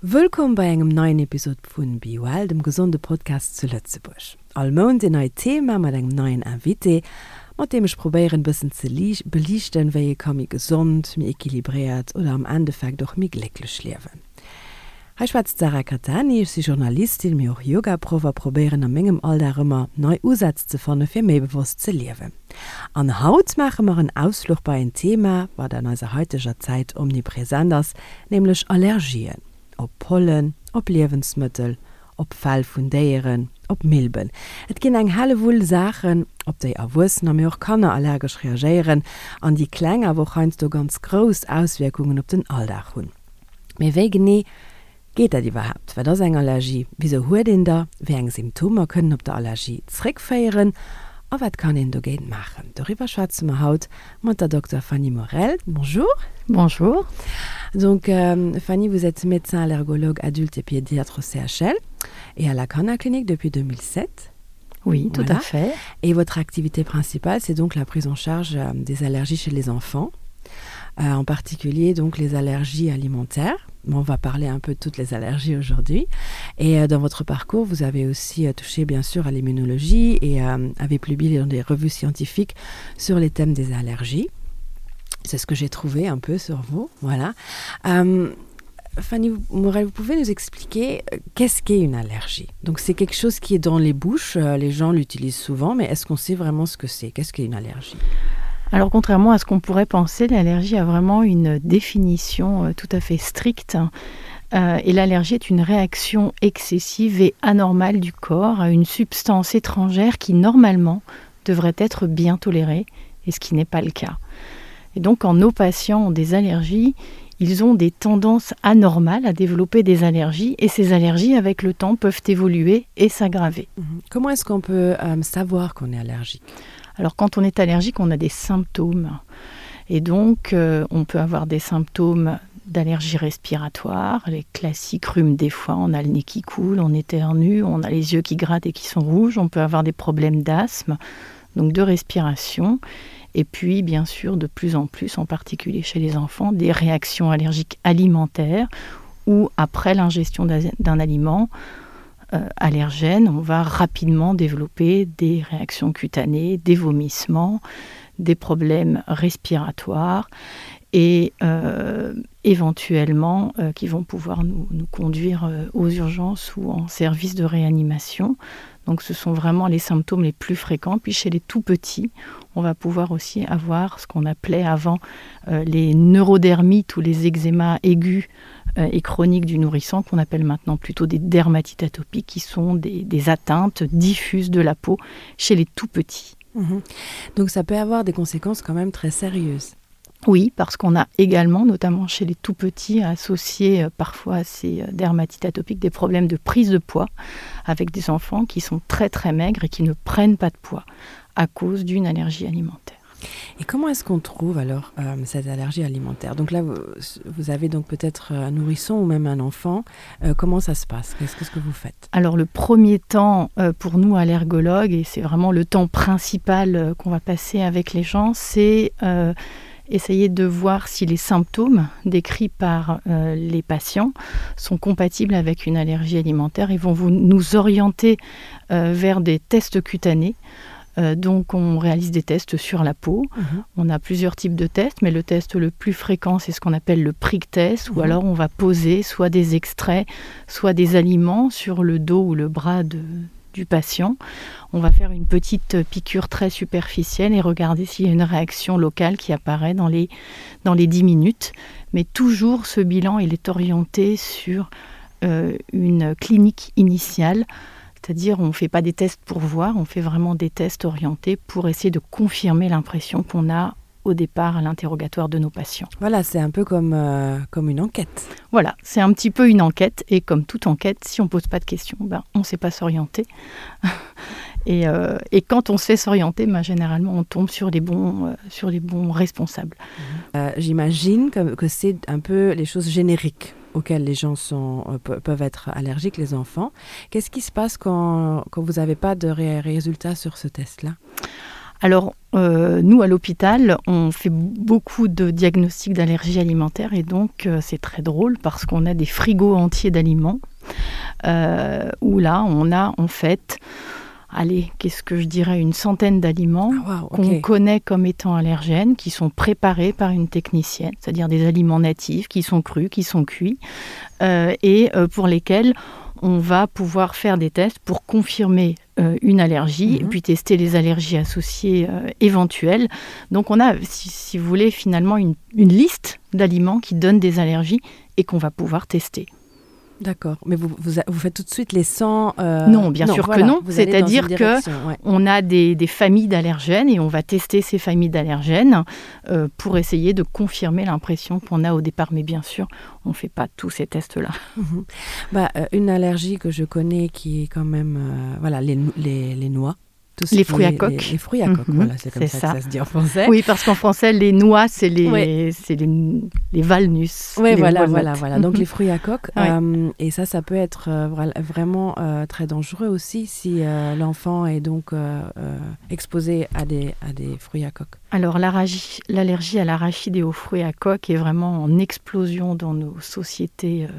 Wëllkomm bei engem neien Episod vun Be Well, dem gesonde Podcast zu Lëtzebuerg. All Mount een neit Thema mat engem neien Invité, mat deem ech probéieren bëssen ze beliichten, wéi ee ka méi gesond, méi equilibréiert oder am Endeffekt och méi glécklech liewen. Hei schwätzt d'Sarah Cattani, ech si Journalistin, mee och Yogaproff a probéieren a mengem Alldag ëmmer nei Usätz ze fanne fir méi bewosst ze liewen. An haut maache mer en Ausfluch bei en Thema, wat an eiser haiteger Zäit omnipresent ass, nämlech Allergien. Op Pollen, op Liewensmëttel, op Fell vun Déieren, op Milben. Et ginn eng Hellewull Saachen, op déi Erwuessener, mee och Kanner allergesch reagéieren an déi kleng, awer och heiansdo ganz grouss Auswierkungen op den Alldag hunn. Mee wéi genee geet dat iwwerhaapt? Wat ass eng Allergie? Wisou huet een der? Wéi eng Symptomer kënnen op der Allergie zréckféieren? A wat kann een dogéint maachen? Doriwwer schwätze mer haut mat der Dokter Fanny Morel. Bonjour. Bonjour. Donc Fanny, vous êtes médecin allergologue adulte et pédiatre au CHL et à la Kannerklinik Clinique depuis 2007. Oui, tout à fait. Et votre activité principale, c'est donc la prise en charge euh, des allergies chez les enfants, euh, en particulier donc les allergies alimentaires. On va parler un peu de toutes les allergies aujourd'hui. Et euh, dans votre parcours, vous avez aussi touché bien sûr à l'immunologie et avez publié dans des revues scientifiques sur les thèmes des allergies. C'est ce que j'ai trouvé un peu sur vous. Voilà. Euh, Fanny Morel, vous pouvez nous expliquer euh, qu'est-ce qu'est une allergie Donc c'est quelque chose qui est dans les bouches, euh, les gens l'utilisent souvent, mais est-ce qu'on sait vraiment ce que c'est Qu'est-ce qu'est une allergie Alors contrairement à ce qu'on pourrait penser, l'allergie a vraiment une définition euh, tout à fait stricte. Et l'allergie est une réaction excessive et anormale du corps à une substance étrangère qui normalement devrait être bien tolérée et ce qui n'est pas le cas. Et donc quand nos patients ont des allergies, ils ont des tendances anormales à développer des allergies et ces allergies avec le temps peuvent évoluer et s'aggraver. Mhm. Comment est-ce qu'on peut euh, savoir qu'on est allergique Alors quand on est allergique, on a des symptômes. Et donc euh, on peut avoir des symptômes d'allergie respiratoire, les classiques rhumes des foies, on a le nez qui coule, on éternue, on a les yeux qui grattent et qui sont rouges, on peut avoir des problèmes d'asthme, donc de respiration et puis bien sûr de plus en plus, en particulier chez les enfants, des réactions allergiques alimentaires ou après l'ingestion d'un aliment euh, allergène, on va rapidement développer des réactions cutanées, des vomissements, des problèmes respiratoires et euh, éventuellement euh, qui vont pouvoir nous, nous conduire euh, aux urgences ou en service de réanimation. Donc ce sont vraiment les symptômes les plus fréquents. Puis chez les tout petits, on va pouvoir aussi avoir ce qu'on appelait avant euh, les neurodermites ou les eczémas aigus euh, et chroniques du nourrisson qu'on appelle maintenant plutôt des dermatites atopiques qui sont des, des atteintes diffuses de la peau chez les tout petits. Mmh. Donc ça peut avoir des conséquences quand même très sérieuses. Oui, parce qu'on a également, notamment chez les tout petits, associé euh, parfois à ces euh, dermatites atopiques des problèmes de prise de poids avec des enfants qui sont très très maigres et qui ne prennent pas de poids à cause d'une allergie alimentaire. Et comment est-ce qu'on trouve alors euh, cette allergie alimentaire Donc là, vous, vous avez donc peut-être un nourrisson ou même un enfant. Euh, comment ça se passe Qu'est-ce que, ce que vous faites Alors le premier temps euh, pour nous allergologues, et c'est vraiment le temps principal euh, qu'on va passer avec les gens, c'est euh, essayer de voir si les symptômes décrits par euh, les patients sont compatibles avec une allergie alimentaire et vont vous, nous orienter euh, vers des tests cutanés. Euh, donc on réalise des tests sur la peau. Mmh. On a plusieurs types de tests, mais le test le plus fréquent, c'est ce qu'on appelle le prick test, mmh. ou alors on va poser soit des extraits, soit des aliments sur le dos ou le bras de, du patient. On va faire une petite piqûre très superficielle et regarder s'il y a une réaction locale qui apparaît dans les, dans les 10 minutes. Mais toujours ce bilan, il est orienté sur euh, une clinique initiale. C'est-à-dire on ne fait pas des tests pour voir, on fait vraiment des tests orientés pour essayer de confirmer l'impression qu'on a au départ à l'interrogatoire de nos patients. Voilà, c'est un peu comme, euh, comme une enquête. Voilà, c'est un petit peu une enquête et comme toute enquête, si on pose pas de questions, ben, on ne sait pas s'orienter. et, euh, et quand on sait s'orienter, ben, généralement on tombe sur les bons, euh, sur les bons responsables. Euh, J'imagine que, que c'est un peu les choses génériques auxquelles les gens sont, euh, peuvent être allergiques, les enfants. Qu'est-ce qui se passe quand, quand vous n'avez pas de ré résultats sur ce test-là? Alors euh, nous à l'hôpital, on fait beaucoup de diagnostics d'allergies alimentaires et donc euh, c'est très drôle parce qu'on a des frigos entiers d'aliments euh, où là on a en fait allez, qu'est-ce que je dirais une centaine d'aliments ah, wow, qu'on okay. connaît comme étant allergènes, qui sont préparés par une technicienne, c'est-à-dire des aliments natifs qui sont crus, qui sont cuits euh, et euh, pour lesquels on va pouvoir faire des tests pour confirmer euh, une allergie mmh. et puis tester les allergies associées euh, éventuelles. Donc on a, si, si vous voulez, finalement une, une liste d'aliments qui donnent des allergies et qu'on va pouvoir tester. D'accord, mais vous, vous, vous faites tout de suite les 100 euh... Non, bien non, sûr voilà, que non. C'est-à-dire que ouais. on a des, des familles d'allergènes et on va tester ces familles d'allergènes euh, pour essayer de confirmer l'impression qu'on a au départ. Mais bien sûr, on ne fait pas tous ces tests-là. Mmh. Bah, euh, une allergie que je connais qui est quand même euh, voilà, les, les, les noix. Tout les fruits à coque. Les, les fruits à coque, mm -hmm, voilà, c'est comme ça, ça, que ça se dit en français. Oui, parce qu'en français, les noix, c'est les, ouais. les, les valnus. Oui, voilà, voilà, voilà. Donc mm -hmm. les fruits à coque. Ouais. Euh, et ça, ça peut être euh, vraiment euh, très dangereux aussi si euh, l'enfant est donc euh, euh, exposé à des, à des fruits à coque. Alors l'allergie à l'arachide et aux fruits à coque est vraiment en explosion dans nos sociétés euh,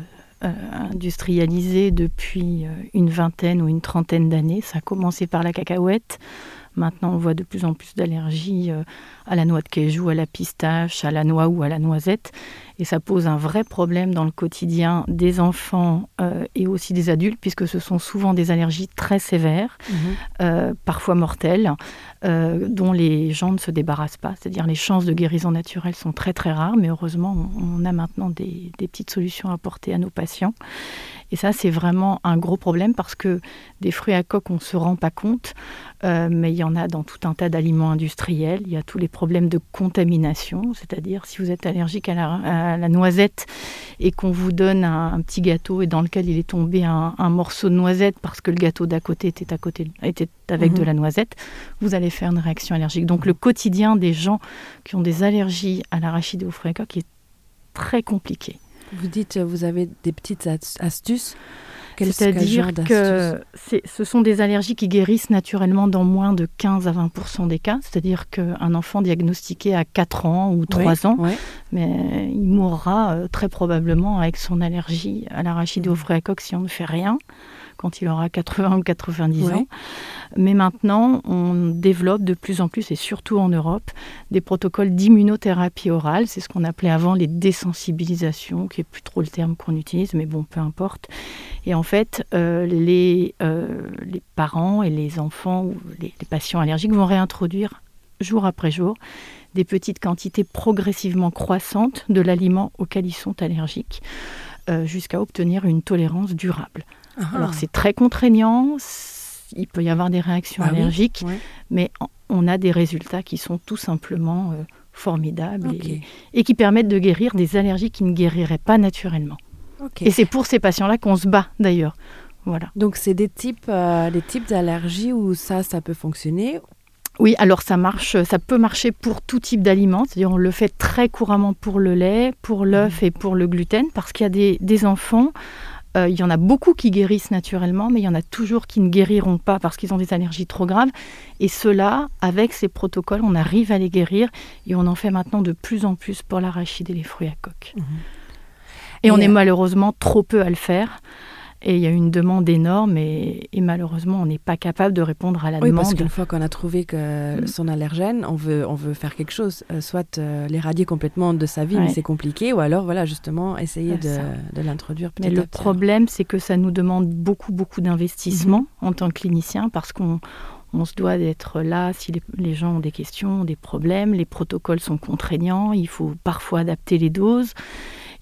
euh, industrialisées depuis euh, une vingtaine ou une trentaine d'années. Ça a commencé par la cacahuète. Maintenant, on voit de plus en plus d'allergies euh, à la noix de cajou, à la pistache, à la noix ou à la noisette. Et ça pose un vrai problème dans le quotidien des enfants euh, et aussi des adultes, puisque ce sont souvent des allergies très sévères, mmh. euh, parfois mortelles, euh, dont les gens ne se débarrassent pas. C'est-à-dire les chances de guérison naturelle sont très très rares, mais heureusement, on, on a maintenant des, des petites solutions à apporter à nos patients. Et ça, c'est vraiment un gros problème parce que des fruits à coque, on ne se rend pas compte, euh, mais il y en a dans tout un tas d'aliments industriels. Il y a tous les problèmes de contamination, c'est-à-dire si vous êtes allergique à la, à la noisette et qu'on vous donne un, un petit gâteau et dans lequel il est tombé un, un morceau de noisette parce que le gâteau d'à côté était, à côté, était avec mmh. de la noisette, vous allez faire une réaction allergique. Donc le quotidien des gens qui ont des allergies à l'arachide et aux fruits à coque est très compliqué. Vous dites vous avez des petites astuces. C'est-à-dire que ce sont des allergies qui guérissent naturellement dans moins de 15 à 20 des cas. C'est-à-dire qu'un enfant diagnostiqué à 4 ans ou 3 oui, ans, oui. mais il mourra euh, très probablement avec son allergie à l'arachide mmh. au fruit à coque si on ne fait rien quand il aura 80 ou 90 ouais. ans. Mais maintenant, on développe de plus en plus, et surtout en Europe, des protocoles d'immunothérapie orale. C'est ce qu'on appelait avant les désensibilisations, qui est plus trop le terme qu'on utilise, mais bon, peu importe. Et en fait, euh, les, euh, les parents et les enfants ou les, les patients allergiques vont réintroduire jour après jour des petites quantités progressivement croissantes de l'aliment auquel ils sont allergiques euh, jusqu'à obtenir une tolérance durable. Ah. Alors c'est très contraignant, il peut y avoir des réactions ah allergiques, oui, ouais. mais on a des résultats qui sont tout simplement euh, formidables okay. et, et qui permettent de guérir des allergies qui ne guériraient pas naturellement. Okay. Et c'est pour ces patients-là qu'on se bat d'ailleurs. Voilà. Donc c'est des types, euh, des types d'allergies où ça, ça peut fonctionner Oui, alors ça marche, ça peut marcher pour tout type d'aliments, c'est-à-dire on le fait très couramment pour le lait, pour l'œuf mmh. et pour le gluten, parce qu'il y a des, des enfants, euh, il y en a beaucoup qui guérissent naturellement, mais il y en a toujours qui ne guériront pas parce qu'ils ont des allergies trop graves. Et ceux-là, avec ces protocoles, on arrive à les guérir et on en fait maintenant de plus en plus pour l'arachide et les fruits à coque. Mmh. Et, et on est euh, malheureusement trop peu à le faire. Et il y a une demande énorme et, et malheureusement, on n'est pas capable de répondre à la oui, demande. Parce qu'une fois qu'on a trouvé que mm. son allergène, on veut, on veut faire quelque chose, euh, soit euh, l'éradier complètement de sa vie, ouais. mais c'est compliqué, ou alors voilà, justement essayer de, de l'introduire. Mais le problème, c'est que ça nous demande beaucoup, beaucoup d'investissement mm -hmm. en tant que clinicien parce qu'on on se doit d'être là si les, les gens ont des questions, des problèmes, les protocoles sont contraignants, il faut parfois adapter les doses.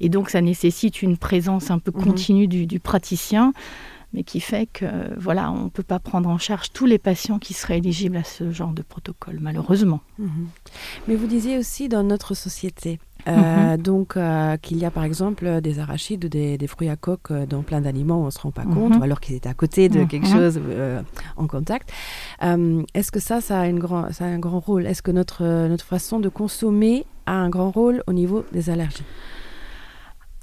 Et donc ça nécessite une présence un peu mhm. continue mmh. du, du praticien, mais qui fait que voilà, on ne peut pas prendre en charge tous les patients qui seraient éligibles à ce genre de protocole, malheureusement. Mmh. Mais vous disiez aussi dans notre société, euh, mmh. donc euh, qu'il y a par exemple des arachides ou des, des fruits à coque euh, dans plein d'aliments où on ne se rend pas compte, mmh. ou alors qu'ils étaient à côté de mmh. quelque chose euh, en contact. Euh, Est-ce que ça, ça a, une grand, ça a un grand rôle Est-ce que notre, notre façon de consommer a un grand rôle au niveau des allergies?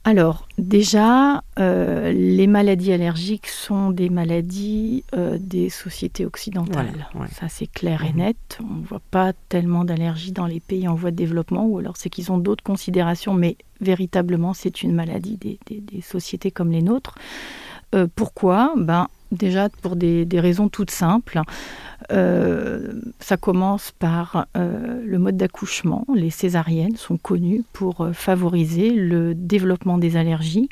Alors déjà, euh, les maladies allergiques sont des maladies euh, des sociétés occidentales. Voilà, ouais. Ça c'est clair et mhm. net. On ne voit pas tellement d'allergies dans les pays en voie de développement ou alors c'est qu'ils ont d'autres considérations, mais véritablement c'est une maladie des, des, des sociétés comme les nôtres. Euh, pourquoi ben, déjà pour des, des raisons toutes simples. Euh, ça commence par euh, le mode d'accouchement. Les césariennes sont connues pour euh, favoriser le développement des allergies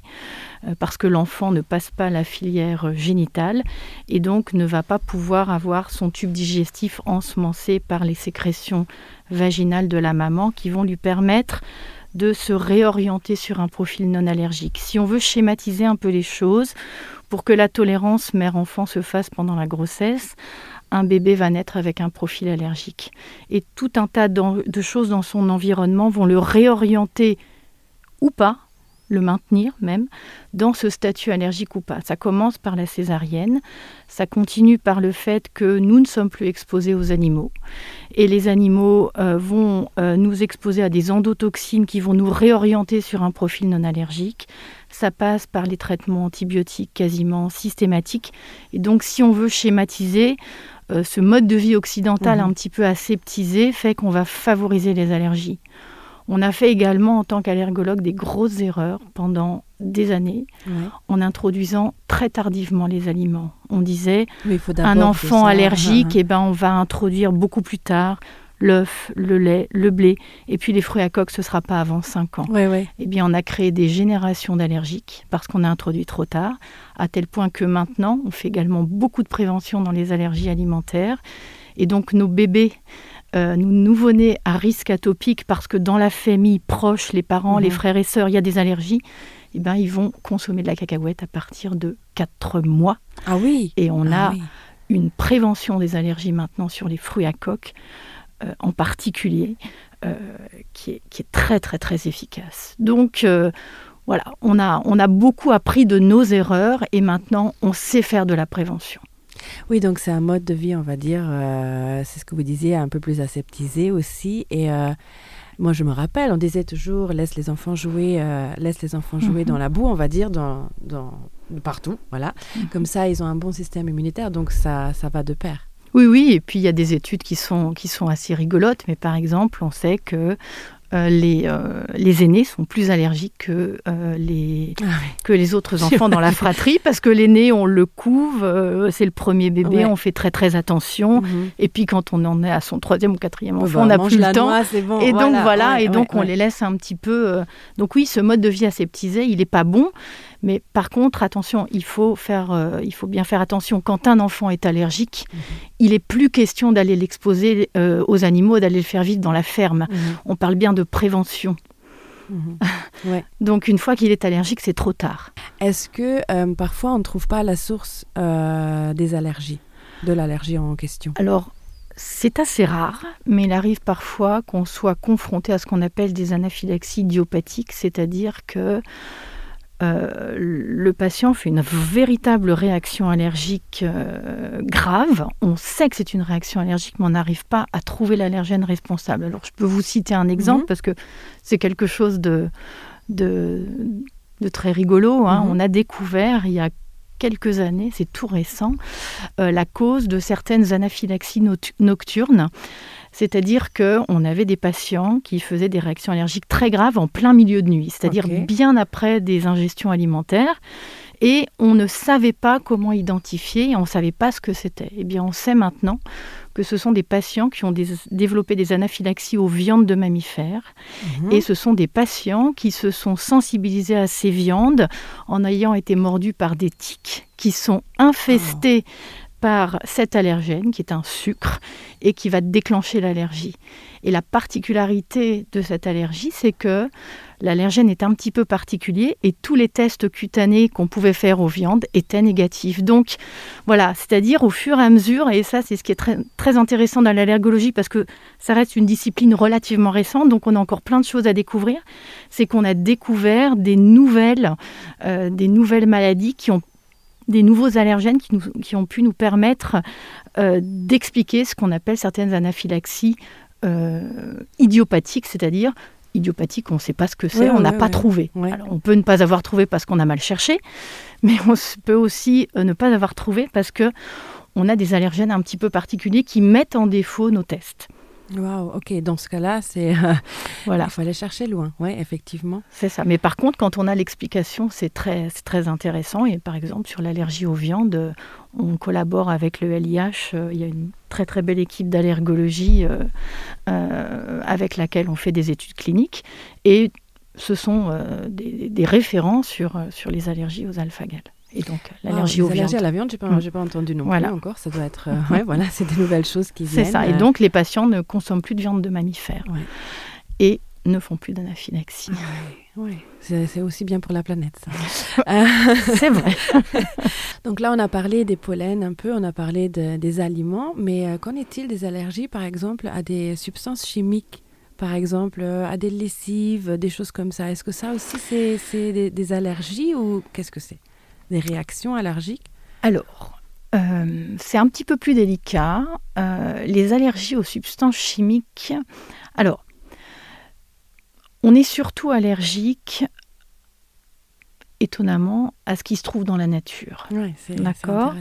euh, parce que l'enfant ne passe pas la filière génitale et donc ne va pas pouvoir avoir son tube digestif ensemencé par les sécrétions vaginales de la maman qui vont lui permettre de se réorienter sur un profil non allergique. Si on veut schématiser un peu les choses, pour que la tolérance mère-enfant se fasse pendant la grossesse, un bébé va naître avec un profil allergique. Et tout un tas de choses dans son environnement vont le réorienter ou pas, le maintenir même, dans ce statut allergique ou pas. Ça commence par la césarienne, ça continue par le fait que nous ne sommes plus exposés aux animaux. Et les animaux euh, vont euh, nous exposer à des endotoxines qui vont nous réorienter sur un profil non allergique. Ça passe par les traitements antibiotiques quasiment systématiques. Et donc si on veut schématiser, euh, ce mode de vie occidental mmh. un petit peu aseptisé fait qu'on va favoriser les allergies. On a fait également en tant qu'allergologue des grosses erreurs pendant des années ouais. en introduisant très tardivement les aliments. On disait un enfant allergique, et eh ben on va introduire beaucoup plus tard l'œuf, le lait, le blé et puis les fruits à coque ce sera pas avant 5 ans. Ouais, ouais. Eh bien on a créé des générations d'allergiques parce qu'on a introduit trop tard, à tel point que maintenant on fait également beaucoup de prévention dans les allergies alimentaires et donc nos bébés euh, nous nouveau-nés à risque atopique parce que dans la famille proche, les parents, mmh. les frères et sœurs, il y a des allergies, et eh ben ils vont consommer de la cacahuète à partir de 4 mois. Ah oui. Et on ah a oui. une prévention des allergies maintenant sur les fruits à coque euh, en particulier euh, qui, est, qui est très très très efficace. Donc euh, voilà, on a, on a beaucoup appris de nos erreurs et maintenant on sait faire de la prévention. Oui, donc c'est un mode de vie, on va dire, euh, c'est ce que vous disiez, un peu plus aseptisé aussi. Et euh, moi, je me rappelle, on disait toujours laisse les enfants jouer, euh, laisse les enfants jouer mm -hmm. dans la boue, on va dire, dans, dans, partout. Voilà. Mm -hmm. Comme ça, ils ont un bon système immunitaire, donc ça, ça va de pair. Oui, oui, et puis il y a des études qui sont, qui sont assez rigolotes, mais par exemple, on sait que euh, les, euh, les aînés sont plus allergiques que, euh, les, ah oui. que les autres enfants dans la fratrie parce que l'aîné on le couve euh, c'est le premier bébé ouais. on fait très très attention mm -hmm. et puis quand on en est à son troisième ou quatrième enfant bah, on n'a plus le temps noix, bon, et voilà, donc voilà ouais, et donc ouais, on les laisse un petit peu euh... donc oui ce mode de vie aseptisé il est pas bon mais par contre attention il faut faire euh, il faut bien faire attention quand un enfant est allergique mmh. il est plus question d'aller l'exposer euh, aux animaux d'aller le faire vivre dans la ferme mmh. on parle bien de prévention mmh. ouais. donc une fois qu'il est allergique c'est trop tard est-ce que euh, parfois on ne trouve pas la source euh, des allergies de l'allergie en question alors c'est assez rare mais il arrive parfois qu'on soit confronté à ce qu'on appelle des anaphylaxies idiopathiques c'est à dire que euh, le patient fait une véritable réaction allergique euh, grave. On sait que c'est une réaction allergique, mais on n'arrive pas à trouver l'allergène responsable. Alors je peux vous citer un exemple mmh. parce que c'est quelque chose de, de, de très rigolo. Hein. Mmh. On a découvert il y a quelques années, c'est tout récent, euh, la cause de certaines anaphylaxies nocturnes. C'est-à-dire qu'on avait des patients qui faisaient des réactions allergiques très graves en plein milieu de nuit, c'est-à-dire okay. bien après des ingestions alimentaires. Et on ne savait pas comment identifier, on ne savait pas ce que c'était. Eh bien, on sait maintenant que ce sont des patients qui ont des, développé des anaphylaxies aux viandes de mammifères. Mmh. Et ce sont des patients qui se sont sensibilisés à ces viandes en ayant été mordus par des tiques qui sont infestés oh par cet allergène qui est un sucre et qui va déclencher l'allergie. Et la particularité de cette allergie, c'est que l'allergène est un petit peu particulier et tous les tests cutanés qu'on pouvait faire aux viandes étaient négatifs. Donc voilà, c'est-à-dire au fur et à mesure, et ça c'est ce qui est très, très intéressant dans l'allergologie parce que ça reste une discipline relativement récente, donc on a encore plein de choses à découvrir, c'est qu'on a découvert des nouvelles, euh, des nouvelles maladies qui ont des nouveaux allergènes qui, nous, qui ont pu nous permettre euh, d'expliquer ce qu'on appelle certaines anaphylaxies euh, idiopathiques, c'est-à-dire Idiopathique, on ne sait pas ce que c'est, on n'a pas trouvé. Alors, on peut ne pas avoir trouvé parce qu'on a mal cherché, mais on peut aussi euh, ne pas avoir trouvé parce que on a des allergènes un petit peu particuliers qui mettent en défaut nos tests. Wow, ok, dans ce cas-là, c'est euh, voilà. il faut aller chercher loin, ouais, effectivement. C'est ça. Mais par contre, quand on a l'explication, c'est très, très intéressant. Et par exemple, sur l'allergie aux viandes, on collabore avec le LIH. Euh, il y a une très très belle équipe d'allergologie euh, euh, avec laquelle on fait des études cliniques. Et ce sont euh, des, des référents sur, euh, sur les allergies aux alpha-gales. Et donc l'allergie ah, aux viandes. à la viande, j'ai pas, mmh. pas entendu non voilà. plus encore. Ça doit être euh, ouais, voilà, c'est des nouvelles choses qui C'est ça. Et euh. donc les patients ne consomment plus de viande de mammifères ouais. et ne font plus d'anaphylaxie. Ah, ouais, ouais. C'est aussi bien pour la planète. C'est vrai. donc là, on a parlé des pollens un peu, on a parlé de, des aliments, mais euh, qu'en est-il des allergies, par exemple, à des substances chimiques par exemple euh, à des lessives, des choses comme ça. Est-ce que ça aussi c'est des, des allergies ou qu'est-ce que c'est Des réactions allergiques Alors, euh, c'est un petit peu plus délicat. Euh, les allergies aux substances chimiques. Alors, on est surtout allergique étonnamment à ce qui se trouve dans la nature. Ouais, D'accord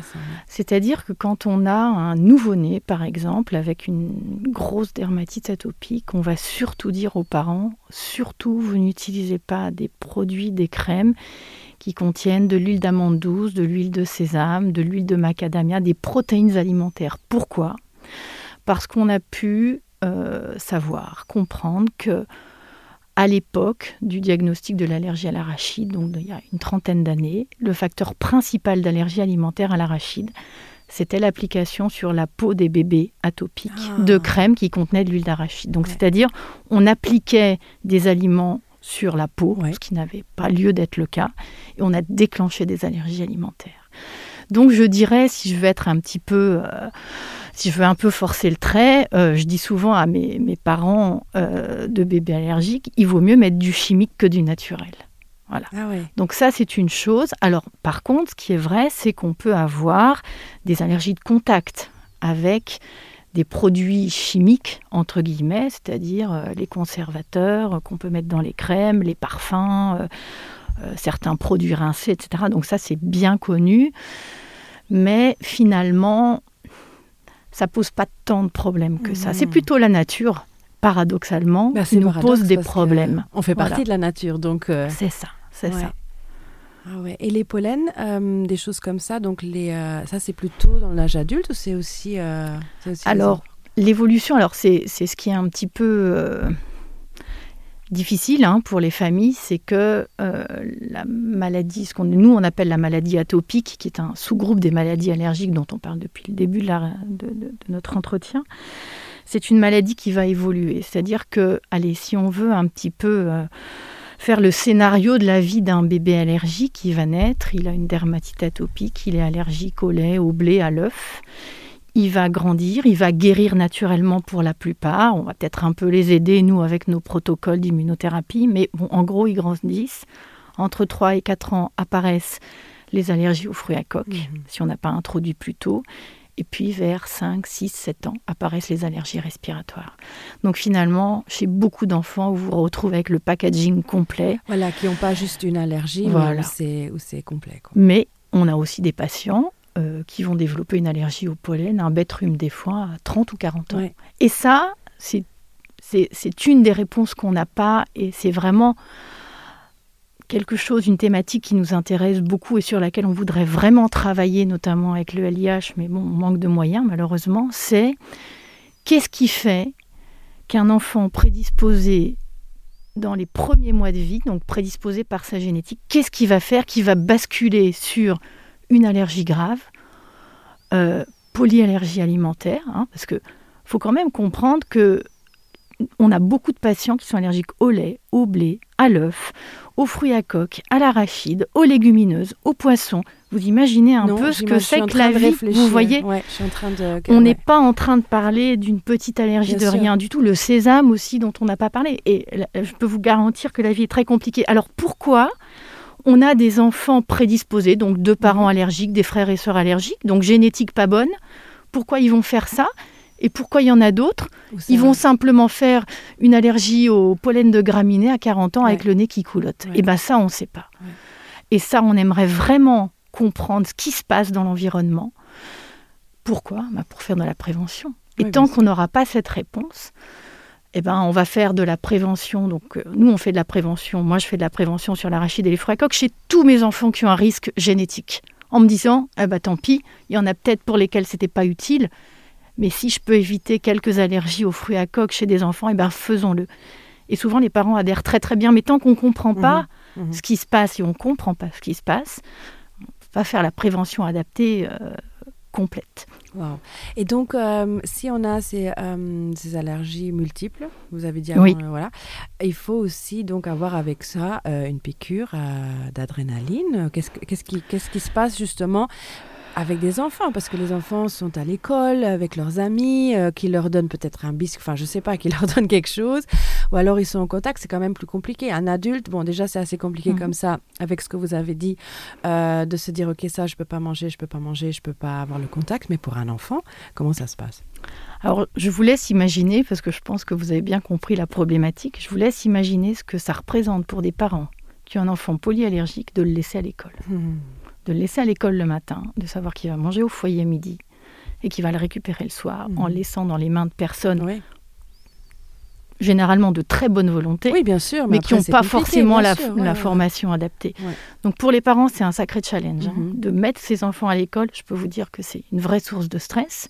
C'est-à-dire que quand on a un nouveau-né, par exemple, avec une grosse dermatite atopique, on va surtout dire aux parents, surtout vous n'utilisez pas des produits, des crèmes qui contiennent de l'huile d'amande douce, de l'huile de sésame, de l'huile de macadamia, des protéines alimentaires. Pourquoi Parce qu'on a pu euh, savoir, comprendre que à l'époque du diagnostic de l'allergie à l'arachide, donc il y a une trentaine d'années, le facteur principal d'allergie alimentaire à l'arachide, c'était l'application sur la peau des bébés atopiques ah. de crème qui contenait de l'huile d'arachide. Donc ouais. c'est-à-dire on appliquait des aliments sur la peau, ouais. ce qui n'avait pas lieu d'être le cas, et on a déclenché des allergies alimentaires. Donc je dirais, si je veux être un petit peu, euh, si je veux un peu forcer le trait, euh, je dis souvent à mes, mes parents euh, de bébés allergiques, il vaut mieux mettre du chimique que du naturel. Voilà. Ah ouais. Donc ça, c'est une chose. Alors par contre, ce qui est vrai, c'est qu'on peut avoir des allergies de contact avec des produits chimiques, entre guillemets, c'est-à-dire euh, les conservateurs euh, qu'on peut mettre dans les crèmes, les parfums, euh, euh, certains produits rincés, etc. Donc ça, c'est bien connu. Mais finalement, ça pose pas tant de problèmes que ça. C'est mmh. plutôt la nature, paradoxalement, bah, qui nous pose des problèmes. On fait partie voilà. de la nature, donc... Euh... C'est ça, c'est ouais. ça. Ah ouais. Et les pollens, euh, des choses comme ça, donc les, euh, ça c'est plutôt dans l'âge adulte ou c'est aussi, euh, aussi Alors, l'évolution, alors c'est ce qui est un petit peu euh, difficile hein, pour les familles, c'est que euh, la maladie, ce qu'on nous on appelle la maladie atopique, qui est un sous-groupe des maladies allergiques dont on parle depuis le début de, la, de, de, de notre entretien, c'est une maladie qui va évoluer. C'est-à-dire que, allez, si on veut un petit peu euh, faire le scénario de la vie d'un bébé allergique qui va naître, il a une dermatite atopique, il est allergique au lait, au blé, à l'œuf. Il va grandir, il va guérir naturellement pour la plupart. On va peut-être un peu les aider, nous, avec nos protocoles d'immunothérapie, mais bon, en gros, ils grandissent. Entre 3 et 4 ans apparaissent les allergies aux fruits à coque, mmh. si on n'a pas introduit plus tôt. Et puis vers 5, 6, 7 ans apparaissent les allergies respiratoires. Donc finalement, chez beaucoup d'enfants, vous vous retrouvez avec le packaging complet. Voilà, qui n'ont pas juste une allergie, voilà. mais où c'est complet. Quoi. Mais on a aussi des patients euh, qui vont développer une allergie au pollen, un bête rhume des foins à 30 ou 40 ans. Ouais. Et ça, c'est une des réponses qu'on n'a pas et c'est vraiment quelque chose, une thématique qui nous intéresse beaucoup et sur laquelle on voudrait vraiment travailler, notamment avec le LIH, mais bon, on manque de moyens malheureusement, c'est qu'est-ce qui fait qu'un enfant prédisposé dans les premiers mois de vie, donc prédisposé par sa génétique, qu'est-ce qui va faire qui va basculer sur une allergie grave, euh, polyallergie alimentaire, hein, parce que faut quand même comprendre que on a beaucoup de patients qui sont allergiques au lait, au blé, à l'œuf, aux fruits à coque, à l'arachide, aux légumineuses, aux poissons. Vous imaginez un non, peu ce que c'est que la de vie, vous voyez ouais, je suis en train de... On ouais. n'est pas en train de parler d'une petite allergie Bien de sûr. rien du tout. Le sésame aussi dont on n'a pas parlé. Et je peux vous garantir que la vie est très compliquée. Alors pourquoi on a des enfants prédisposés, donc deux parents Mhm. allergiques, des frères et sœurs allergiques, donc génétique pas bonne. Pourquoi ils vont faire ça? Et pourquoi il y en a d'autres Ils vont simplement faire une allergie au pollen de graminées à 40 ans ouais. avec le nez qui coulotte. Ouais. Et ben ça, on ne sait pas. Ouais. Et ça, on aimerait vraiment comprendre ce qui se passe dans l'environnement. Pourquoi ben Pour faire de la prévention. Et oui, tant qu'on n'aura pas cette réponse, eh ben, on va faire de la prévention. Donc, euh, nous, on fait de la prévention. Moi, je fais de la prévention sur l'arachide et les fruits à coque chez tous mes enfants qui ont un risque génétique. En me disant, eh ben, tant pis, il y en a peut-être pour lesquels ce n'était pas utile. Mais si je peux éviter quelques allergies aux fruits à coque chez des enfants, eh ben, faisons-le. Et souvent, les parents adhèrent très très bien. Mais tant qu'on ne comprend pas mmh, mmh. ce qui se passe et on ne comprend pas ce qui se passe, on ne peut pas faire la prévention adaptée euh, complète. Wow. Et donc, euh, si on a ces, euh, ces allergies multiples, vous avez dit avant, oui. euh, voilà, il faut aussi donc avoir avec ça euh, une piqûre euh, d'adrénaline. Qu'est-ce, qu'est-ce, qui, qu'est-ce qui se passe justement avec des enfants parce que les enfants sont à l'école avec leurs amis euh, qui leur donnent peut-être un biscuit enfin je sais pas qui leur donne quelque chose ou alors ils sont en contact c'est quand même plus compliqué un adulte bon déjà c'est assez compliqué mmh. comme ça avec ce que vous avez dit euh, de se dire ok ça je peux pas manger je peux pas manger je peux pas avoir le contact mais pour un enfant comment ça se passe alors je vous laisse imaginer parce que je pense que vous avez bien compris la problématique je vous laisse imaginer ce que ça représente pour des parents qui ont un enfant polyallergique de le laisser à l'école mmh de le laisser à l'école le matin, de savoir qu'il va manger au foyer midi et qu'il va le récupérer le soir mmh. en laissant dans les mains de personnes oui. généralement de très bonne volonté, oui, bien sûr, mais, mais qui n'ont pas forcément la, sûr, ouais, la ouais. formation adaptée. Ouais. Donc pour les parents, c'est un sacré challenge mmh. hein, de mettre ses enfants à l'école. Je peux vous dire que c'est une vraie source de stress.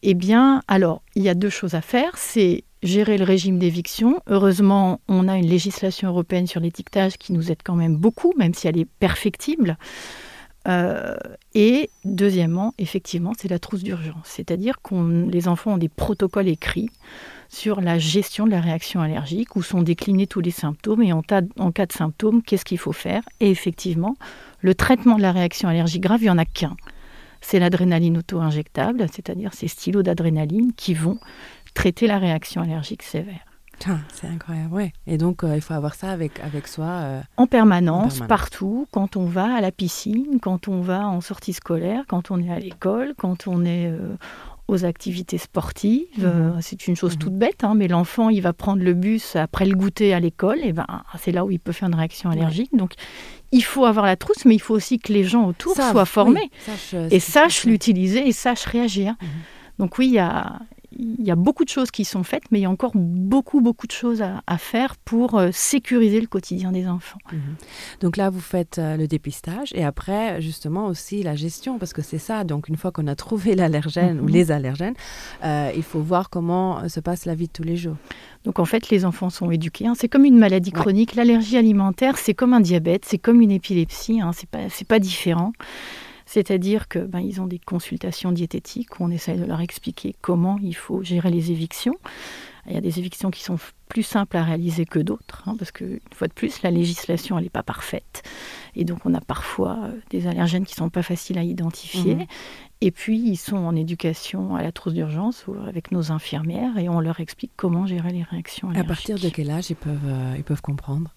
Eh bien, alors, il y a deux choses à faire. C'est gérer le régime d'éviction. Heureusement, on a une législation européenne sur l'étiquetage qui nous aide quand même beaucoup, même si elle est perfectible. Euh, et deuxièmement, effectivement, c'est la trousse d'urgence. C'est-à-dire que les enfants ont des protocoles écrits sur la gestion de la réaction allergique, où sont déclinés tous les symptômes et en, tas, en cas de symptômes, qu'est-ce qu'il faut faire Et effectivement, le traitement de la réaction allergique grave, il n'y en a qu'un. C'est l'adrénaline auto-injectable, c'est-à-dire ces stylos d'adrénaline qui vont traiter la réaction allergique sévère. Ah, c'est incroyable, ouais. Et donc, euh, il faut avoir ça avec, avec soi euh, en, permanence, en permanence, partout, quand on va à la piscine, quand on va en sortie scolaire, quand on est à l'école, quand on est euh, aux activités sportives. Mmh. Euh, c'est une chose mmh. toute bête, hein, mais l'enfant, il va prendre le bus après le goûter à l'école, et ben, c'est là où il peut faire une réaction allergique. Ouais. Donc, il faut avoir la trousse, mais il faut aussi que les gens autour Savent, soient formés oui, sache, euh, et sachent l'utiliser et sachent réagir. Mmh. Donc oui, il y a, il y a beaucoup de choses qui sont faites, mais il y a encore beaucoup, beaucoup de choses à, à faire pour euh, sécuriser le quotidien des enfants. Mmh. Donc là, vous faites euh, le dépistage et après, justement, aussi la gestion, parce que c'est ça. Donc une fois qu'on a trouvé l'allergène mmh. ou les allergènes, euh, il faut voir comment se passe la vie de tous les jours. Donc en fait, les enfants sont éduqués. Hein. C'est comme une maladie chronique. Ouais. L'allergie alimentaire, c'est comme un diabète, c'est comme une épilepsie. Hein. C'est pas, pas différent. C'est-à-dire que ben, ils ont des consultations diététiques où on essaye de leur expliquer comment il faut gérer les évictions. Il y a des évictions qui sont plus simples à réaliser que d'autres, hein, parce que une fois de plus, la législation elle n'est pas parfaite. Et donc on a parfois euh, des allergènes qui ne sont pas faciles à identifier. Mmh. Et puis ils sont en éducation à la trousse d'urgence avec nos infirmières et on leur explique comment gérer les réactions allergiques. À partir de quel âge ils peuvent, euh, ils peuvent comprendre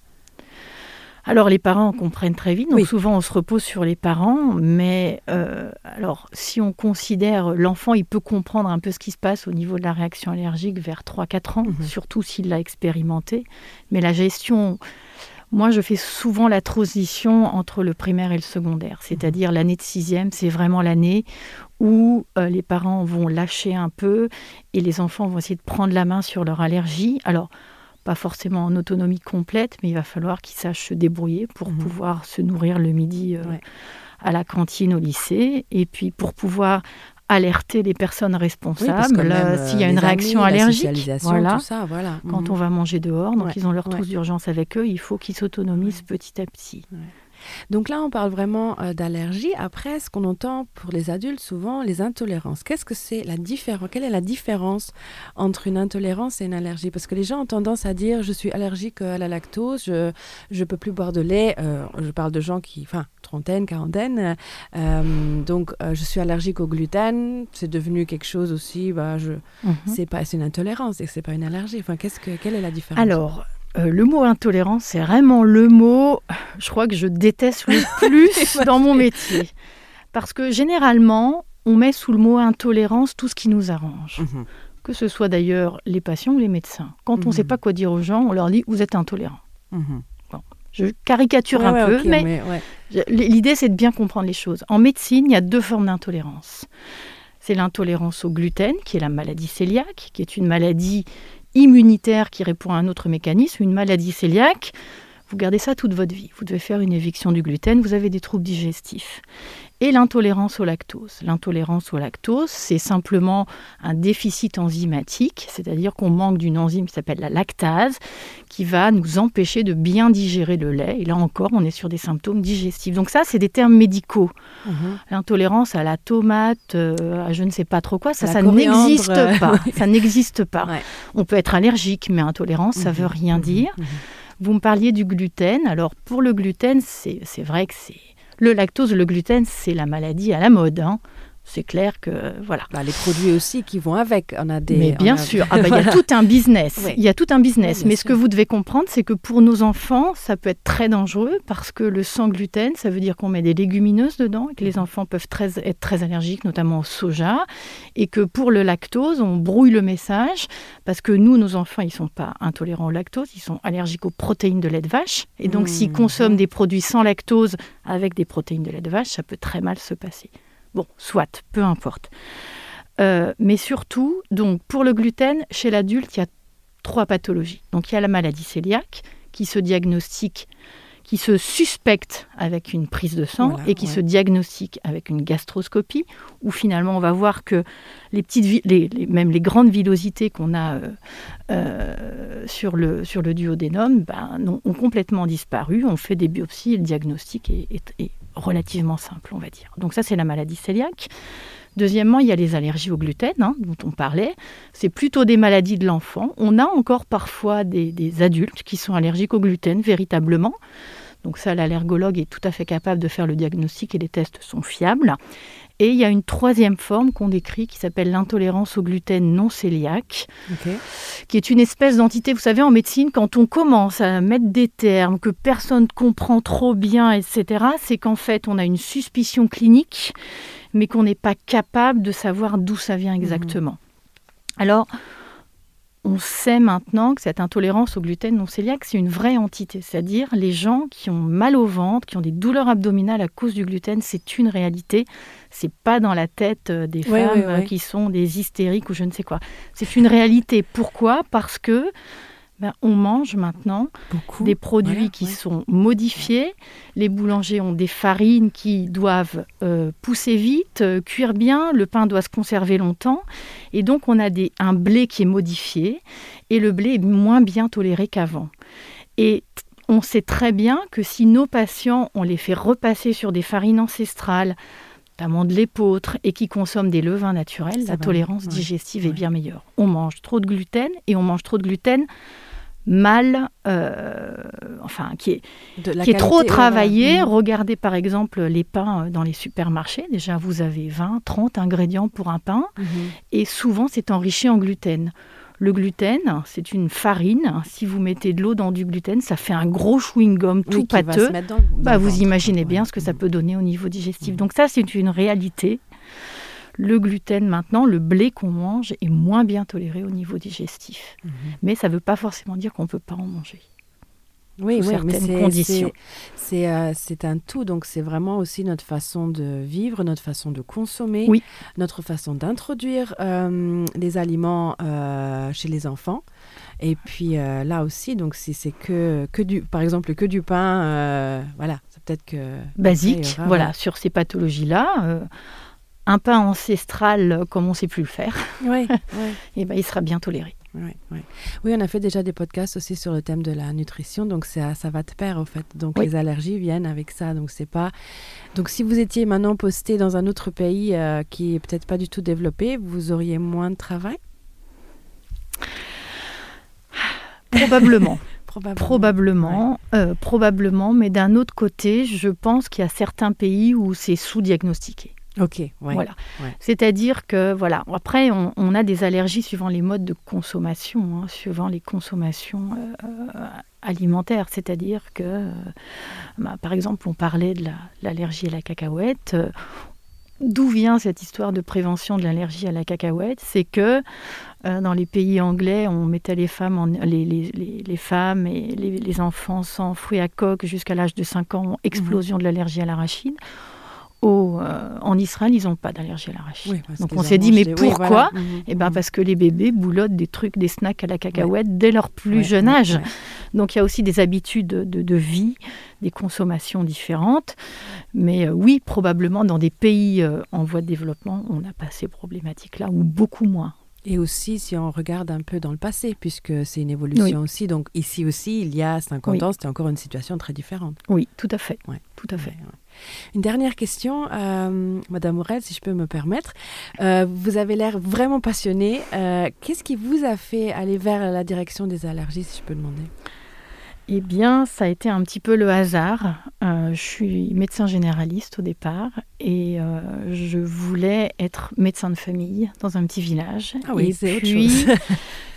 Alors les parents comprennent très vite, donc oui. souvent on se repose sur les parents, mais euh, alors si on considère l'enfant, il peut comprendre un peu ce qui se passe au niveau de la réaction allergique vers 3-4 ans, mmh. surtout s'il l'a expérimenté. Mais la gestion, moi je fais souvent la transition entre le primaire et le secondaire, c'est-à-dire mmh. l'année de sixième, c'est vraiment l'année où euh, les parents vont lâcher un peu et les enfants vont essayer de prendre la main sur leur allergie. Alors, pas forcément en autonomie complète, mais il va falloir qu'ils sachent se débrouiller pour mmh. pouvoir se nourrir le midi euh, ouais. à la cantine au lycée, et puis pour pouvoir alerter les personnes responsables oui, euh, s'il y a une réaction amis, allergique voilà. Ça, voilà. quand mmh. on va manger dehors donc ouais. ils ont leur trousse ouais. d'urgence avec eux il faut qu'ils s'autonomisent ouais. petit à petit ouais. Donc là, on parle vraiment euh, d'allergie. Après, ce qu'on entend pour les adultes souvent, les intolérances. Qu'est-ce que c'est la différence Quelle est la différence entre une intolérance et une allergie Parce que les gens ont tendance à dire je suis allergique à la lactose, je ne peux plus boire de lait. Euh, je parle de gens qui, enfin, trentaine, quarantaine. Euh, donc, euh, je suis allergique au gluten. C'est devenu quelque chose aussi. Bah, je, mm -hmm. C'est pas, c'est une intolérance et c'est pas une allergie. Enfin, qu'est-ce que, quelle est la différence Alors, euh, le mot intolérance, c'est vraiment le mot, je crois que je déteste le plus dans mon métier. Parce que généralement, On met sous le mot intolérance tout ce qui nous arrange. Mmh. Que ce soit d'ailleurs les patients ou les médecins. Quand mmh. on ne sait pas quoi dire aux gens, on leur dit vous êtes intolérant. Mmh. Bon, je caricature ouais, un ouais, peu, okay, mais, mais ouais. l'idée c'est de bien comprendre les choses. En médecine, il y a deux formes d'intolérance. C'est l'intolérance au gluten, qui est la maladie cœliaque, qui est une maladie immunitaire qui répond à un autre mécanisme, une maladie cœliaque. Vous gardez ça toute votre vie. Vous devez faire une éviction du gluten, vous avez des troubles digestifs et l'intolérance au lactose. L'intolérance au lactose, c'est simplement un déficit enzymatique, c'est-à-dire qu'on manque d'une enzyme qui s'appelle la lactase, qui va nous empêcher de bien digérer le lait. Et là encore, on est sur des symptômes digestifs. Donc ça, c'est des termes médicaux. Mmh. L'intolérance à la tomate, euh, à je ne sais pas trop quoi, ça, ça n'existe pas. Ça n'existe pas. Ouais. On peut être allergique, mais intolérance, ça mmh. veut rien mmh. dire. Mmh. Vous me parliez du gluten. Alors pour le gluten, c'est vrai que c'est le lactose, le gluten, c'est la maladie à la mode. Hein. C'est clair que voilà. Bah, les produits aussi qui vont avec, on a des. Mais bien a... sûr, ah bah, il y a tout un business. Oui. Il y a tout un business. Oui, Mais ce que vous devez comprendre, c'est que pour nos enfants, ça peut être très dangereux parce que le sans gluten, ça veut dire qu'on met des légumineuses dedans et que les enfants peuvent très, être très allergiques, notamment au soja, et que pour le lactose, on brouille le message parce que nous, nos enfants, ils sont pas intolérants au lactose, ils sont allergiques aux protéines de lait de vache. Et donc, mmh. s'ils consomment des produits sans lactose avec des protéines de lait de vache, ça peut très mal se passer. Bon, soit, peu importe. Euh, mais surtout, donc, pour le gluten, chez l'adulte, il y a trois pathologies. Donc, il y a la maladie cœliaque qui se diagnostique, qui se suspecte avec une prise de sang voilà, et qui ouais. se diagnostique avec une gastroscopie, où finalement on va voir que les petites, les, les, même les grandes villosités qu'on a euh, euh, sur, le, sur le duodénum ben, ont, ont complètement disparu. On fait des biopsies et le diagnostic est, est, est relativement simple, on va dire. Donc ça, c'est la maladie cœliaque. Deuxièmement, il y a les allergies au gluten, hein, dont on parlait. C'est plutôt des maladies de l'enfant. On a encore parfois des, des adultes qui sont allergiques au gluten, véritablement. Donc ça, l'allergologue est tout à fait capable de faire le diagnostic et les tests sont fiables. Et il y a une troisième forme qu'on décrit qui s'appelle l'intolérance au gluten non cœliaque, okay. qui est une espèce d'entité, vous savez, en médecine, quand on commence à mettre des termes que personne ne comprend trop bien, etc., c'est qu'en fait, on a une suspicion clinique, mais qu'on n'est pas capable de savoir d'où ça vient exactement. Mmh. Alors, on sait maintenant que cette intolérance au gluten non cœliaque, c'est une vraie entité. C'est-à-dire les gens qui ont mal au ventre, qui ont des douleurs abdominales à cause du gluten, c'est une réalité. C'est pas dans la tête euh, des oui, femmes oui, oui. qui sont des hystériques ou je ne sais quoi. C'est une réalité. Pourquoi Parce que ben, on mange maintenant Beaucoup. des produits voilà, qui ouais. sont modifiés. Les boulangers ont des farines qui doivent euh, pousser vite, euh, cuire bien, le pain doit se conserver longtemps. Et donc on a des, un blé qui est modifié et le blé est moins bien toléré qu'avant. Et on sait très bien que si nos patients, on les fait repasser sur des farines ancestrales, notamment de l'épeautre, et qui consomment des levains naturels, Ça la va, tolérance ouais. digestive ouais. est bien meilleure. On mange trop de gluten et on mange trop de gluten mal, euh, enfin, qui est, qui est trop travaillé. Mmh. Regardez par exemple les pains euh, dans les supermarchés. Déjà, vous avez 20, 30 ingrédients pour un pain mmh. et souvent c'est enrichi en gluten. Le gluten, c'est une farine. Si vous mettez de l'eau dans du gluten, ça fait un gros chewing-gum tout oui, pâteux. Dans, dans bah, vous ventre, imaginez ouais. bien ce que ça mmh. peut donner au niveau digestif. Mmh. Donc ça, c'est une réalité. Le gluten maintenant, le blé qu'on mange est moins bien toléré au niveau digestif. Mmh. Mais ça ne veut pas forcément dire qu'on ne peut pas en manger. Oui, oui mais c'est conditions. C'est euh, un tout, donc c'est vraiment aussi notre façon de vivre, notre façon de consommer, oui. notre façon d'introduire euh, les aliments euh, chez les enfants. Et puis euh, là aussi, donc si c'est que, que du, par exemple que du pain, euh, voilà, c'est peut-être que basique, aura, voilà, ouais. sur ces pathologies-là. Euh, un pain ancestral comme on ne sait plus le faire, oui, oui. et ben, il sera bien toléré. Oui, oui. oui, on a fait déjà des podcasts aussi sur le thème de la nutrition, donc ça, ça va de pair au fait. Donc oui. les allergies viennent avec ça, donc c'est pas. Donc si vous étiez maintenant posté dans un autre pays euh, qui est peut-être pas du tout développé, vous auriez moins de travail Probablement. Probablement, probablement, ouais. euh, probablement mais d'un autre côté, je pense qu'il y a certains pays où c'est sous-diagnostiqué. Ok, ouais, voilà. Ouais. C'est-à-dire que voilà. Après, on, on a des allergies suivant les modes de consommation, hein, suivant les consommations euh, alimentaires. C'est-à-dire que, euh, bah, par exemple, on parlait de l'allergie la, à la cacahuète. Euh, D'où vient cette histoire de prévention de l'allergie à la cacahuète C'est que euh, dans les pays anglais, on mettait les femmes, en, les, les, les, les femmes et les, les enfants sans fruits à coque jusqu'à l'âge de 5 ans, explosion mmh. de l'allergie à l'arachide au, euh, en Israël, ils n'ont pas d'allergie à l'arachide. Oui, Donc on s'est dit, mais pourquoi oui, voilà. Mmh, Eh ben, mmh. parce que les bébés boulottent des trucs, des snacks à la cacahuète ouais. dès leur plus ouais, jeune ouais, âge. Ouais. Donc il y a aussi des habitudes de, de, de vie, des consommations différentes. Mais euh, oui, probablement dans des pays euh, en voie de développement, on n'a pas ces problématiques-là, ou beaucoup moins. Et aussi si on regarde un peu dans le passé, puisque c'est une évolution oui. aussi. Donc ici aussi, il y a 50 oui. ans, c'était encore une situation très différente. Oui, tout à fait. Ouais. Tout à fait. Ouais, ouais. Une dernière question, euh, Madame Morel, si je peux me permettre. Euh, vous avez l'air vraiment passionnée. Euh, Qu'est-ce qui vous a fait aller vers la direction des allergies, si je peux demander Eh bien, ça a été un petit peu le hasard. Euh, je suis médecin généraliste au départ et euh, je voulais être médecin de famille dans un petit village. Ah oui, et puis,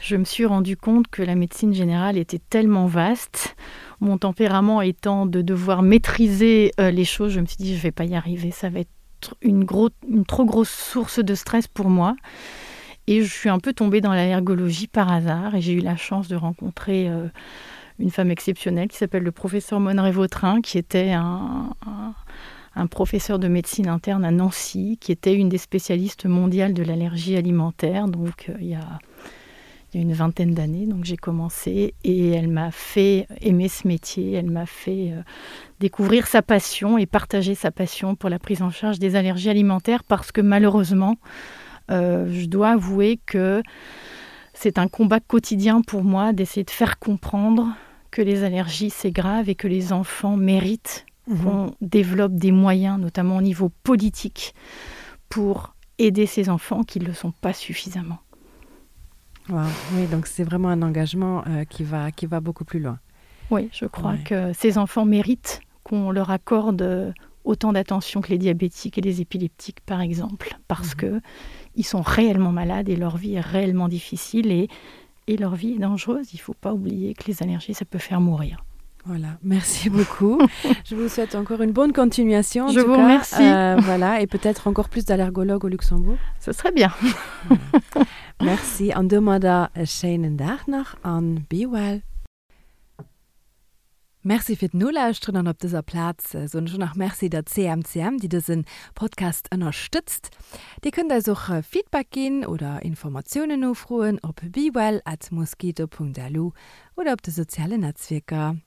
je me suis rendu compte que la médecine générale était tellement vaste. Mon tempérament étant de devoir maîtriser euh, les choses, je me suis dit je vais pas y arriver, ça va être une, gros, une trop grosse source de stress pour moi. Et je suis un peu tombée dans l'allergologie par hasard et j'ai eu la chance de rencontrer euh, une femme exceptionnelle qui s'appelle le professeur Monneray Vautrin, qui était un, un, un professeur de médecine interne à Nancy, qui était une des spécialistes mondiales de l'allergie alimentaire. Donc euh, il y a il y a une vingtaine d'années donc j'ai commencé et elle m'a fait aimer ce métier elle m'a fait euh, découvrir sa passion et partager sa passion pour la prise en charge des allergies alimentaires parce que malheureusement euh, je dois avouer que c'est un combat quotidien pour moi d'essayer de faire comprendre que les allergies c'est grave et que les enfants méritent mmh. qu'on développe des moyens notamment au niveau politique pour aider ces enfants qui ne le sont pas suffisamment. Wow. Oui, donc c'est vraiment un engagement euh, qui, va, qui va beaucoup plus loin. Oui, je crois ouais. que ces enfants méritent qu'on leur accorde euh, autant d'attention que les diabétiques et les épileptiques, par exemple, parce mmh. que ils sont réellement malades et leur vie est réellement difficile et, et leur vie est dangereuse. Il ne faut pas oublier que les allergies, ça peut faire mourir. Voilà, merci beaucoup. Je vous souhaite encore une bonne continuation. Je vous cas. remercie. Euh, voilà, et peut-être encore plus d'allergologues au Luxembourg. Ce serait bien. Voilà. Merci an domadder e schéinen Dag nach an be well. Merci fir d'Nolauschteren an op dëser Plaz soen ech och nach Merci der CMCM, déi dëse Podcast ënnerstëtzt. Dir kënnt eis och Feedback ginn oder Informatiounen nofroen op bewell at mosquito.lu oder op de sozialen Netzwierker.